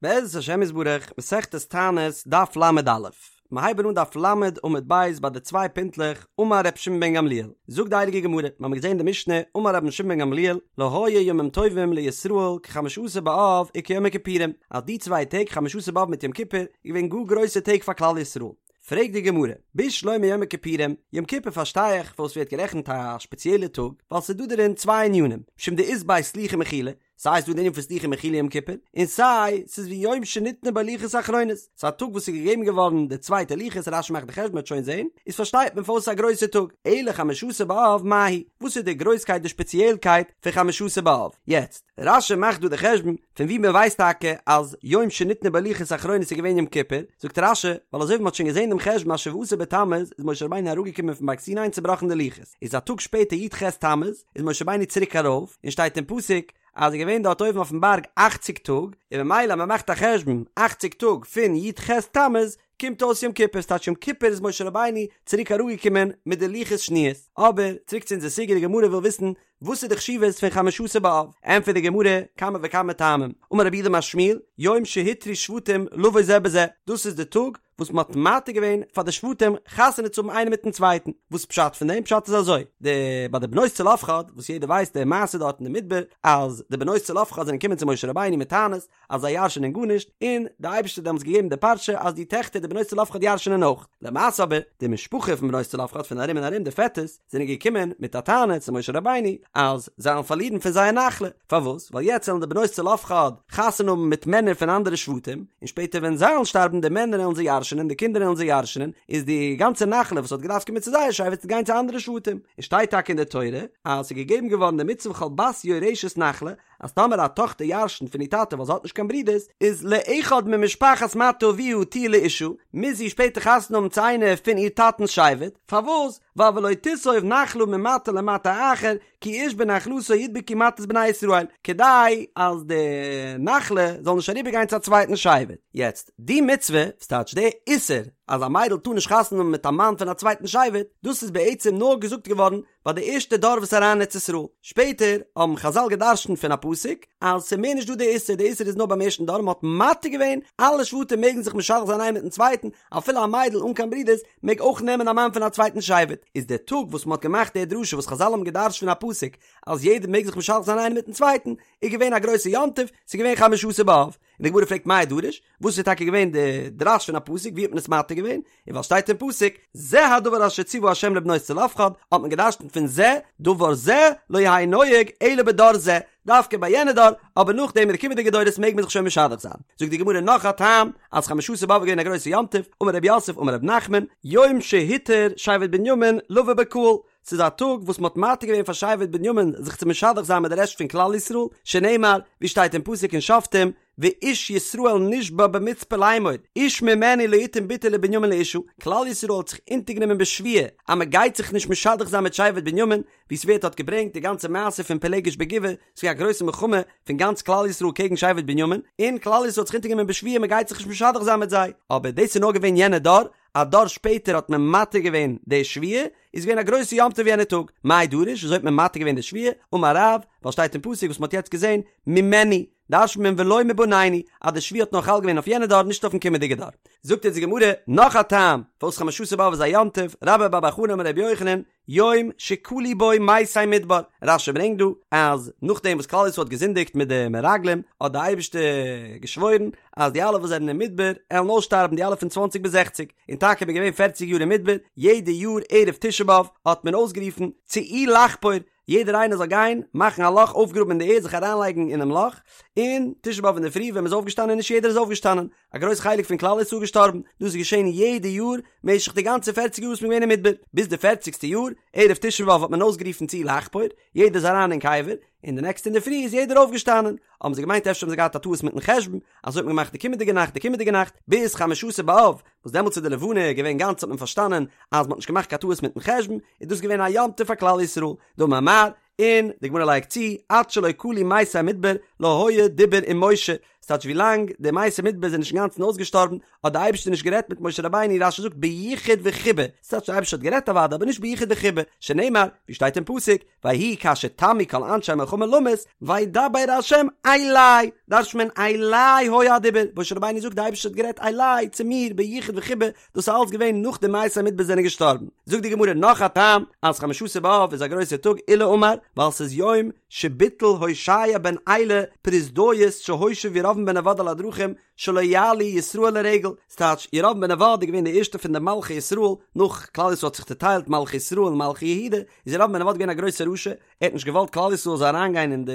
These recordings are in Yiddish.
בעזרת השם יתברך, מסכת תענית, דף ל"א. מיר הייבן אן דף ל' עמוד ב' ביי די צוויי פינטלעך, אמר ר' שמעון בן גמליאל, זאגט די הייליגע גמרא, מיר האבן געזען די משנה, אמר רבן שמעון בן גמליאל, לא היו ימים טובים לישראל כחמשה עשר באב וכיום הכיפורים, אז די צוויי טעג חמשה עשר באב מיט יום כיפור איז געווען גאר גרויסע טעג פאר כלל ישראל. פרעגט די גמרא, בשלמא יום הכיפורים, יום כיפור פארשטיי איך פארוואס ווערט גערעכנט א שפעציעלע טאג, ווייל ס'איז דא דערין צוויי ענינים, משום דאית ביה סליחה ומחילה, סיי איז דא די ענין פון סליחה ומחילה יום כיפור, און סיי ס'איז ויום שניתנו בו לוחות אחרונות, ס'איז א טאג וואס איז געגעבן געווארן די צווייטע לוחות, רש"י מאכט די חשבון מ'וועט שוין זען, איז פארשטייט מען פארוואס ס'איז א גרויסע טאג, אלא חמשה עשר באב מאי היא, וואס איז די גרויסקייט די שפעציעלקייט פון חמשה עשר באב? יעצט, רש"י מאכט דא די חשבון פון ווי מ'ווייסט טאקע אז יום שניתנו בו לוחות אחרונות איז געווען יום כיפור, זאגט רש"י, ווייל אזוי ווי מ'האט שוין געזען דעם חשבון אז שבעה עשר בתמוז איז משה רבינו אראפגעקומען פון בארג סיני און צובראכן די לוחות, איז א טאג שפעטער י"ח תמוז, איז משה רבינו צוריק ארויף, און שטייט אין פסוק אז ער איז געווען דארט אויבן אויפן בארג אכציג טאג, און ממילא אז מען מאכט א חשבון אכציג טאג פון י"ח תמוז קומט אויס יום כיפור, ס'טייטש יום כיפור איז משה רבינו צוריק אראפגעקומען מיט די לוחות שניות. אבער, צוריק צו אונזער סוגיא, די גמרא וויל וויסן וואס איז די חשיבות פון חמשה עשר באב, ענטפערט די גמרא, כמה וכמה טעמים, אמר רב יהודה אמר שמואל, יום שהותרו שבטים לבוא זה בזה, דאס איז די טאג וואס מען האט מתיר געווען פאר די שבטים חתונה צו האבן איינער מיטן צווייטן, וואס פשט פון דעם? פשט איז אזוי, די ביי די בנות צלפחד, וואס יעדער ווייסט די מעשה דארט אין די מדבר, אז די בנות צלפחד זענען געקומען צו משה רבינו מיט טענות אז זיי ירש'ענען גארנישט, און די אייבערשטער האט דעמאלטס געגעבן די פרשה אז די טעכטער די בנות צלפחד ירש'ענען אויך, למעשה אבער די משפחה פון בנות צלפחד פון ארום און ארום די פעטערס זענען געקומען מיט א טענה צו משה רבינו אז זיי וועלן פארלירן פון זייער נחלה, פארוואס? ווייל יעצט וועלן די בנות צלפחד חתונה האבן מיט מענער פון אנדערע שבטים, און שפעטער ווען זיי וועלן שטארבן די מענער וועלן זיי ירש'נען, די קינדער וועלן זיי ירש'נען, איז די גאנצע נחלה וואס האט געדארפט קומען צו זייער שבט וועט גיין צו אנדערע שבטים. און שטייט טאקע אין די תורה אז ס'איז געגעבן געווארן די מצוה וכל בת יורשת נחלה, אז טאמער א טאכטער ירש'נט פון איר טאטע ווייל זי האט נישט קיין ברודערס, איז לאחד ממשפחת מטה אביה תהיה לאשה, מוז זי שפעטער חתונה האבן צו איינער פון איר טאטנ'ס שבט, פארוואס? ווייל ולא תסוב נחלה ממטה למטה אחר, כי איש בנחלתו ידבקו מטות בני ישראל, כדי אז די נחלה זאל נישט אריבער גיין צו א צווייטן שבט. יעצט, די מצוה, ס'טייטש די איסור, אז א מיידל טאר נישט חתונה האבן מיט א מאן פון א צווייטן שבט, דאס איז בעצם נאר געזאגט געווארן ביי די ערשטע דור וואס איז אריין אין ארץ ישראל, שפעטער האבן חזל גע'דרש'נט פון א פסוק אז ס'איז מער נישט דא די איסור, די איסור איז נאר ביים ערשטן דור, מ'האט מתיר געווען, אלע שבטים מעגן זיך משדך זיין איינער מיטן צווייטן, אפילו א מיידל אן קיין ברודערס מעג אויך נעמען א מאן פון א צווייטן שבט, איז דער טאג וואס מ'האט געמאכט די דרשה וואס חזל האבן גע'דרש'ט פון א פסוק אז יעדער מעג זיך משדך זיין איינער מיטן צווייטן, איז געווען א גרויסע יום טוב, ס'איז געווען חמשה עשר באב, און די גמרא פרעגט מאי דרוש, וואס איז טאקע געווען די דרש פון א פסוק, ווי האט מען עס מתיר געווען, און ווייל שטייט אין פסוק, זה הדבר אשר ציוה ה' לבנות צלפחד, האט מען געדרש'נט פון זה, דבר זה לא יהא נוהג אלא בדור זה, דווקא ביי יענע דור, אבער נאכדעם אין די קומענדיגע דורות מעג מען זיך שוין משדך זיין. זאגט די גמרא נאך א טעם, אז חמשה עשר באב איז געווען א גרויסע יום טוב, אמר רב יוסף אמר רב נחמן, יום שהותר שבט בנימין לבא בקהל, ס'איז א טאג וואס מ'האט מתיר געווען פאר שבט בנימין זיך צו משדך זיין מיט די רעשט פון כלל ישראל, שנאמר, ווי שטייט אין פסוק אין שופטים, ואיש ישראל נשבע במצפה לאמור, איש ממנו לא יתן בתו לבנימין לאשה, כלל ישראל האט זיך אונטערגענומען בשבועה אז מ'גייט זיך נישט משדך זיין מיט שבט בנימין, ווי ס'ווערט דארט געברענגט די גאנצע מעשה פון פילגש בגבעה, ס'איז געווען א גרויסע מלחמה פון גאנץ כלל ישראל קעגן שבט בנימין, און כלל ישראל האט זיך אונטערגענומען בשבועה מ'גייט זיך נישט משדך זיין מיט זיי, אבער דאס איז נאר געווען יענע דור, א דור שפעטער האט מען מתיר געווען די שבועה, איז געווען א גרויסע יום טוב יענע טאג, מאי דרוש, וויאזוי האט מען מתיר געווען די שבועה, אמר רב, ווייל שטייט אין פסוק וואס מ'האט יעצט געזען, ממנו, דרש'נט מען ולא מבנינו, אז די שבועה האט נאר חל געווען אויף יענע דור נישט אויפן קומענדיגע דור. זאגט אונז די גמרא נאך א טעם פארוואס חמשה עשר באב איז א יום טוב, רבה בר בר חנה אמר רבי יוחנן, יום שכלו בו מתי מדבר, רש"י ברענגט דא אז נאכדעם וואס כלל ישראל האט געזינדיגט מיט די מרגלים האט די אייבערשטער געשוואוירן אז די אלע וואס זענען אין מדבר עלן אויסשטארבן די אלע פון צוואנציג ביז זעכציג, און טאקע מ'איז געווען פערציג יאר אין מדבר, יעדע יאר ערב תשעה באב האט מען אויסגערופן צאו לחפור, יעדער איינער זאל גיין מאכן א לאך אויפגראבן אין די ערד זיך אריינלייגן אינעם לאך, און תשעה באב אינדערפרי ווען מ'איז אויפגעשטאנען נישט יעדער איז אויפגעשטאנען, א גרויס חלק פון כלל ישראל געשטארבן, דאס איז געשען יעדע יאר משך די גאנצע פערציג יאר וואס מ'איז געווען אין מדבר, ביז די פערציגסטע יאר, ערב תשעה באב האט מען אויסגערופן צאו לחפור, יעדער איז אריין אין קבר, און די נעקסטע אינדערפרי איז יעדער אויפגעשטאנען, האבן זיי געמיינט אפשר האבן זיי געהאט א טעות מיטן חשבון, אזוי האט מען געמאכט די קומענדיגע נאכט די קומענדיגע נאכט, ביז חמשה עשר באב, וואס דעמאלטס איז די לבנה געווען גאנץ האט מען פארשטאנען אז מ'האט נישט געמאכט קיין טעות מיטן חשבון, איז דאס געווען א יום טוב פאר כלל ישראל, דאמר מר, און די גמרא לייגט צו, עד שלא כלו מתי מדבר לא היה דיבור עם משה, ס'טייטש ווי לאנג די מתי מדבר זענען נישט אינגאנצן אויסגעשטארבן האט די אייבערשטער נישט גערעדט מיט משה רבינו, רש"י זאגט ביחוד וחיבה, ס'טייטש די אייבערשטער האט גערעדט אוודאי אבער נישט ביחוד וחיבה, שנאמר ווי שטייט אין פסוק ויהי כאשר תמו כל אנשי המלחמה למות וידבר ה' אלי, דרש'נט מען אלי היה הדיבור, משה רבינו זאגט די אייבערשטער האט גערעדט אלי צו מיר ביחוד וחיבה, דאס איז אלץ געווען נאך די מתי מדבר זענען געשטארבן. זאגט די גמרא נאך א טעם אז חמשה עשר באב איז א גרויסער טאג עולא אמר ווייל ס'איז יום שביטל הושע בן אלה פרוזדאית שהושיב ירבעם בן נבט על הדרכים שלא יעלו ישראל לרגל, ס'טייטש ירבעם בן נבט איז געווען די ערשטע פון די מלכי ישראל נאך כלל ישראל האט זיך צוטיילט מלכי ישראל און מלכי יהודה איז ירבעם בן נבט געווען א גרויסער רשע ער האט נישט געוואלט כלל ישראל זאל אריינגיין אין די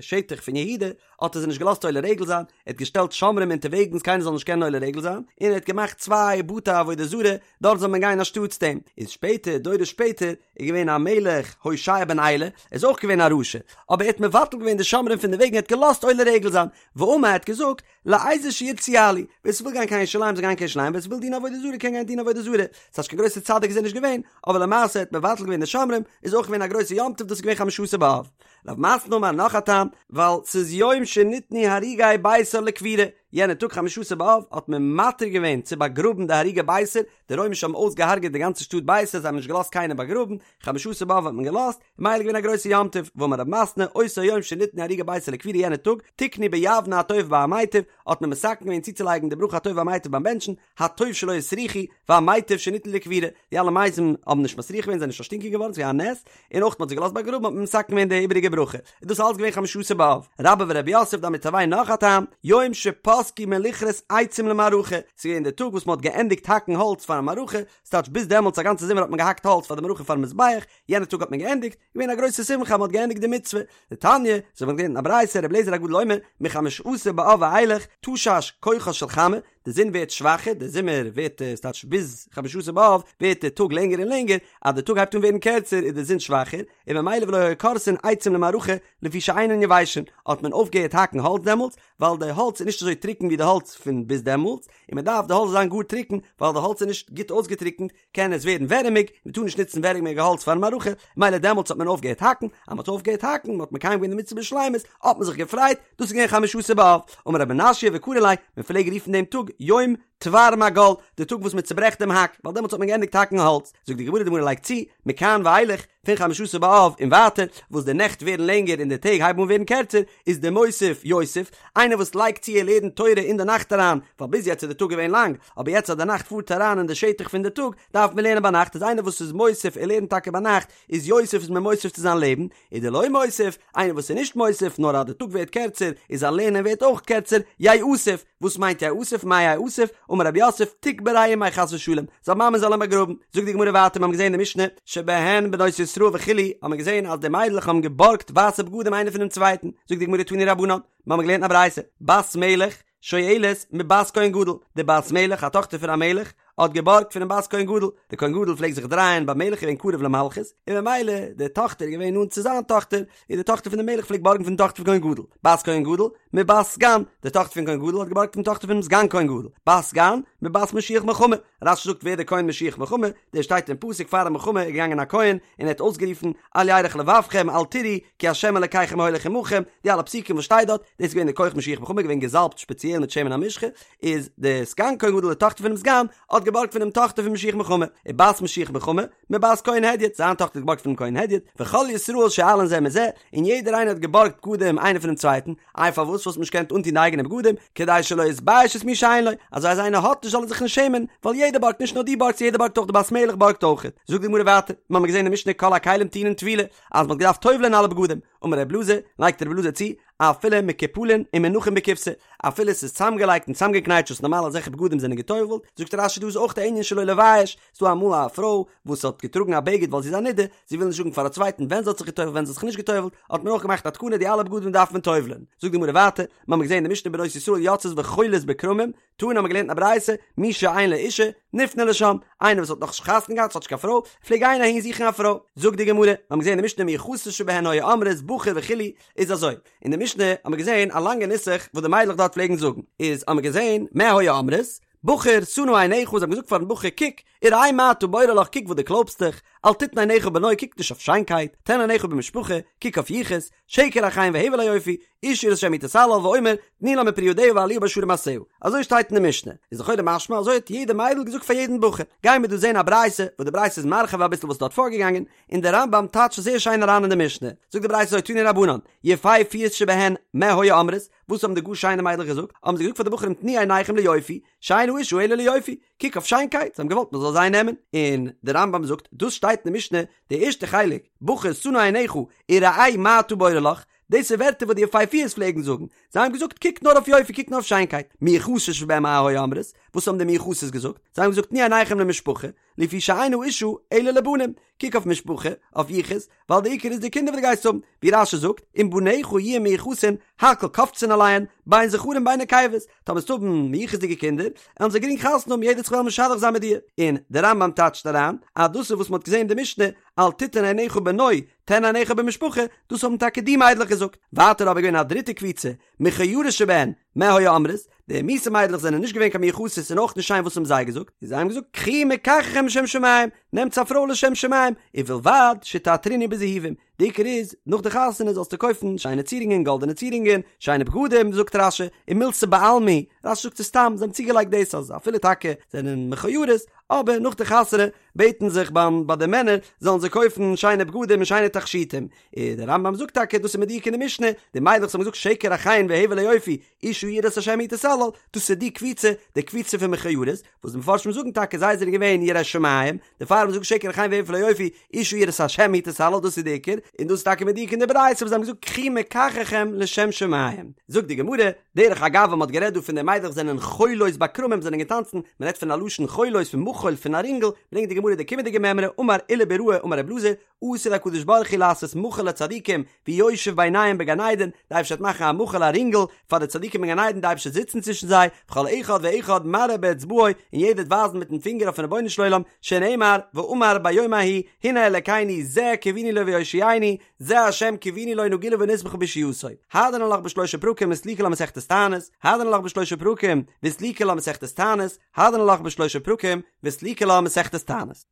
שטח פון יהודה האט ער זיי נישט געלאזט עולה רגל זיין, ער האט געשטעלט שומרים אונטערוועגנס קיינער זאל נישט קענען עולה רגל זיין, און ער האט געמאכט צוויי בתי עבודה זרה, דארט זאל מען גיין אנשטאטס דעם. איז שפעטער, דורות שפעטער, איז געווען א מלך הושע בן אלה, ער איז אויך געווען א רשע, אבער ער האט מבטל געווען די שומרים פון די וועגן, ער האט געלאזט עולה רגל זיין, ואמר ער האט געזאגט, לאיזה שירצו יעלו, ווער ס'וויל גיין קיין ירושלים זאל גיין קיין ירושלים, ווער ס'וויל דינען עבודה זרה קען גיין דינען עבודה זרה, ס'טייטש קיין גרויסער צדיק איז ער נישט געווען, אבער למעשה ער האט מבטל געווען די שומרים, איז אויך געווען א גרויסער יום טוב, דאס איז געווען חמשה עשר באב. רב מתנא אמר נאך א טעם, ווייל ס'איז יום שניתנו הרוגי ביתר לקבורה, יענע טאג חמשה עשר באב האט מען מתיר געווען צו באגראבן די הרוגי ביתר, די רוימישע האבן אויסגעהארגעט די גאנצע שטאט ביתר, זיי האבן נישט געלאזט קיינעם באגראבן, חמשה עשר באב האט מען געלאזט, ממילא איז געווען א גרויסע יום טוב, ואמר רב מתנא, אותו יום שניתנו הרוגי ביתר לקבורה יענע טאג, תיקנו ביבנה הטוב והמיטיב, האט מען מתקן געווען צוצולייגן די ברכה הטוב והמיטיב ביים בענטשן, הטוב שלא הסריחו, והמיטיב שניתנו לקבורה, די אלע מתים האבן נישט מסריח געווען, זענען נישט פארשטינקען געווארן, ס'איז געווען א נס, און אויך מ'האט זיי געלאזט באגראבן האט מען מתקן געווען די איבעריגע ברכה, איז דאס אלץ געווען חמשה עשר באב. רבה ורב יוסף דאמרי תרוייהו נאך א טעם, יום שפסקו מלכרות עצים למערכה, ס'איז געווען די טאג וואס מ'האט געענדיגט האקן האלץ פארן מערכה, ס'טייטש ביז דעמאלטס א גאנצע זומער האט מען געהאקט האלץ פאר די מערכה פארן מזבח, יענע טאג האט מען געענדיגט, געווען א גרויסע שמחה אז מ'האט געענדיגט די מצוה. דתניא, אזוי ווי מ'האט געלערנט אין א ברייתא, רבי אליעזר הגדול אומר, מחמשה עשר באב ואילך, תשש כוחה של חמה, די זון ווערט שוואכער, די זומער ווערט, ס'טייטש ביז חמשה עשר באב ווערט די טאג לענגער און לענגער, אז די טאג הייבט אן ווערן קערצער איז די זון שוואכער, און ממילא ולא היו כורתין עצים למערכה לפי שאינן יבשין, האט מען אויפגעהערט האקן האלץ דעמאלטס, ווייל די האלץ איז נישט אזוי טרוקן ווי די האלץ פון ביז דעמאלטס, און מען דארף די האלץ זאל זיין גאר טרוקן, ווייל די האלץ איז נישט גוט אויסגעטרוקנט, קען עס ווערן ווערעמיג, מען טאר נישט נוצן ווערעמיגע האלץ פארן מערכה, מילא דעמאלטס האט מען אויפגעהערט האקן, אז מען האט אויפגעהערט האקן, מען האט מקיים געווען די מצוה בשלימות, האט מען זיך געפרייט, דאס איז געווען חמשה עשר באב. אמר רב מנשיא וקרי ליה, מען פלעג רופן דעם טאג יום תבר מגל, די טאג וואס מען צוברעכט דעם האק, ווייל דעמאלטס האט מען געענדיגט האקן האלץ. זאגט די גמרא, די גמרא לייגט צו, מכאן ואילך, פון חמשה עשר באב און ווייטער, וואס די נעכט ווערן לענגער און די טעג הייבן אן ווערן קערצער, איז דמוסיף יוסיף, איינער וואס לייגט צו ער לערנט תורה אין די נאכט אריין, ווייל ביז יעצט איז די טאג געווען לאנג, אבער יעצט אז די נאכט פארט אריין אין די שטח פון די טאג, דארף מען לערנען ביינאכט, איז איינער וואס איז מוסיף ער לערנט טאקע ביינאכט, איז יוסיף איז מען מוסיף צו זיין לעבן, און דלא מוסיף, איינער וואס איז נישט מוסיף, נאר אז די טאג ווערט קערצער, איז זיין לערנען ווערט אויך קערצער, ייאסף, וואס מיינט ייאסף, מאי ייאסף, אמר רב יוסף, תיקבריה אימיה חס ושלום, זיין מאמע זאל אים באגראבן, זאגט די גמרא ווייטער, מיר האבן געזען אין די משנה, שבהן בנות ישראל וכו', האבן מיר געזען אז די מיידלעך האבן געבארגט ווייסע בגדים איינער פונעם צווייטן, זאגט די גמרא תנו רבנן, מיר האבן געלערנט אין א ברייתא, בת מלך, שואלת מבת כהן גדול, די בת מלך, א טאכטער פון א מלך, האט געבארגט פונעם בת כהן גדול, די כהן גדול פלעגט זיך דרייען ביים מלך געווען קרוב למלכות, און ממילא די טאכטער איז געווען נאנט צו זיין טאכטער, און די טאכטער פון די מלך פלעגט בארגן פון די טאכטער פון כהן גדול, בת כהן גדול, מבת סגן, די טאכטער פון כהן גדול האט געבארגט פון די טאכטער פונעם סגן כהן גדול, בת סגן, מבת משוח מלחמה, רש"י זאגט ווער דער כהן משוח מלחמה, דער שטייט אין פסוק פאר א מלחמה איז געגאנגען א כהן און ער האט אויסגערופן אל ירך לבבכם אל תיראו כי ה' אלקיכם ההולך עמכם, די אלע פסוקים וואס שטייט דארט, דאס איז געווען דער כח משוח מלחמה געווען געזאלבט שפעציעל מיט שמן המשחה, איז די סגן כהן גדול די טאכטער פונעם סגן האט געבארגט פונעם טאכטער פון משוח מלחמה, ובת משוח מלחמה, מבת כהן הדיוט, זיין טאכטער האט געבארגט פונעם כהן הדיוט, וכל ישראל שואלין זה מזה, און יעדער איינער האט געבארגט בגדים איינער פונעם צווייטן, איי פארוואס וואלט מען נישט געקענט אנטון די אייגענע בגדים, כדי שלא יתבייש את מי שאין לו, אזוי אז איינער האט נישט זאל ער זיך נישט שעמען, ווייל יעדער בארגט נישט נאר דו בארגסט יעדער בארגט אויך די בת מלך בארגט אויך. זאגט די גמרא ווייטער, מיר האבן געזען אין משנה כל הכלים טעונין טבילה, אז מען האט געדארפט טובל'ען אלע בגדים, אמר ר' אלעזר, לייגט ר' אלעזר צו, אפילו מקופלין ומונחין בקופסא, אפילו עס איז צוזאמגעלייגט און צוזאמגעקנייטשט וואס נארמאל אזעלכע בגדים זענען געטובל'ט, זאגט רש"י דא איז אויך די ענין שלא לבייש, ס'דא אמאל א פרוי וואס האט געטראגן א בגד ווייל זי איז א נידה, זי וויל נישט זאגן פאר א צווייטן ווען זי האט זיך געטובל'ט ווען זי האט זיך נישט געטובל'ט, האט מען אויך געמאכט א תקנה די אלע בגדים דארף מען טובל'ען. זאגט די גמרא ווייטער, מיר האבן געזען אין די משנה בנות ישראל יוצאות וחולות בכרמים, תנא האבן מיר געלערנט אין א ברייתא, מי שאין לו אישה, נפנה לשם, איינער וואס האט נאך נישט חתונה געהאט, האט נישט קיין פרוי, פלעג גיין אהין זוכן א פרוי. זאגט די גמרא, מיר האבן געזען אין די משנה מיוחסות שבהן היו אומרות בחור וכו', איז אזוי, אין די משנה האבן מיר געזען א לאנגע נוסח וואס די מיידלעך דארט פלעגן זאגן, איז האבן מיר געזען, מה היו אומרות, בחור, שא נא עיניך, זיי האבן געזאגט פארן בחור, קוק, וראה מה אתה בורר לך, קוק וואס דו קלויבסט דיך, אל תתן עיניך בנוי, קוק נישט אויף שיינקייט, תן עיניך במשפחה, קוק אויף יחוס, שקר החן והבל היופי, אשה יראת השם היא תתהלל, ואומר, תנו לה מפרי ידיה והעליה בשערים מעשיה, אזוי שטייט אין די משנה, איז לכאורה משמע אזוי האט יעדע מיידל געזאגט פאר יעדן בחור, גייען מיר דא זען א ברייתא, וואס די ברייתא איז מרחיב אביסל וואס איז דארט פארגעגאנגען, און דער רמב"ם טייטשט זייער שיין אריין אין די משנה, זאגט די ברייתא אזוי תנו רבנן, יפהפיות שבהן מה היו אומרות, וואס האבן די גאר שיינע מיידלעך געזאגט, האבן זיי געזאגט פאר די בחורים תנו עיניכם ליופי, שאין האשה אלא ליופי, קוק אויף שיינקייט, זיי האבן געוואלט מען זאל זיי נעמען, און דער רמב"ם זאגט, דאס שטייט אין די משנה, די ערשטע חלק, בחור שא נא עיניך וראה מה אתה בורר לך, דאס איז ווערטער וואס די יפהפיות פלעגן זאגן, זיי האבן געזאגט קוק נאר אויף יופי, קוק נאר אויף שיינקייט, מיוחסות שבהן מה היו אומרות, וואס האבן די מיוחסות געזאגט, זיי האבן געזאגט תנו עיניכם למשפחה, לפי שאין האשה אלא לבנים, קוק אויף משפחה, אויף יחוס, ווייל די עיקר איז די קינדער וואס דו גייסט האבן, ווי רש"י זאגט, אם בניך יהיו מיוחסין, הכל קופצין עליהן, בין זכרים בין נקבות, טאמער וועסטו האבן מיוחס'דיגע קינדער, וועלן זיי גרינג חתונה האבן, יעדער וועט זיך וועלן משדך זיין מיט דיר. און דער רמב"ם טייטשט אריין, אז דאס איז וואס מען האט געזען אין די משנה, אל תתן עיניך בנוי, תן עיניך במשפחה, דאס האבן טאקע די מיידלעך געזאגט. ווייטער אבער געווען א דריטע קבוצה, מכוערות שבהן, מה היו אומרות, די מיאוסע מיידלעך זענען נישט געווען קיין מיוחסות און אויך נישט שיין וואס האבן זיי געזאגט? און זיי האבן געזאגט קחו מקחכם לשם שמים, נעמטס א פרוי לשם שמים, ובלבד שתעטרוני בזהובים, די עיקר איז, נאך די חתונה זאלסטו קויפן שיינע צירונגען, גאלדענע צירונגען, שיינע בגדים, זאגט רש"י, ומילתא בעלמא היא, רש"י זאגט עס סתם, זיי האבן צוגעלייגט דאס אז אפילו טאקע זענען מכוערות, אבער נאך די חתונה בעטן זיך ביים ביי די מענער זאלן זיי קויפן שיינע בגדים און שיינע תכשיטים, און דער רמב"ם זאגט טאקע דאס איז מדויק אין די משנה, די מיידלעך וואס האבן געזאגט שקר החן והבל היופי, אשה יראת השם היא תתהלל, דאס איז די קבוצה, די קבוצה פון מכוערות, וואס די מפרשים זאגן טאקע זיי זענען געווען יראי שמים, דערפאר האבן זיי געזאגט שקר החן והבל היופי, אשה יראת השם היא תתהלל, דאס איז די עיקר, און דאס איז טאקע מדויק אין די ברייתא וואס זיי האבן געזאגט קחו מקחכם לשם שמים. זאגט די גמרא, דרך אגב ווען מען האט גערעדט דא פון די מיידלעך זענען חולות בכרמים זענען געטאנצן, מען רעדט פון א לשון חולות פון מחול פון א רינגל, ברענגט די גמרא די קומענדיגע מימרא, אמר עולא ביראה אמר רב אלעזר, עתיד הקדוש ברוך הוא לעשות מחול לצדיקים ויושב ביניהם בגן עדן, די אייבערשטער וועט מאכן א מחול א רינגל פאר די צדיקים אין גן עדן, די אייבערשטער וועט זיצן צווישן זיי, וכל אחד ואחד מראה באצבעו, און יעדער וועט ווייזן מיטן פינגער אויפן רבונו של עולם, שנאמר, ואמר ביום ההוא, הנה אלקינו זה קוינו לו ויושיענו, זה השם קוינו לו נגילה ונשמחה בישועתו. הדרן עלך בשלושה פרקים וסליקא לה מסכת תענית, הדרן עלך בשלושה פרקים וסליקא לה מסכת תענית, הדרן עלך בשלושה פרקים וסליקא לה מסכת תענית.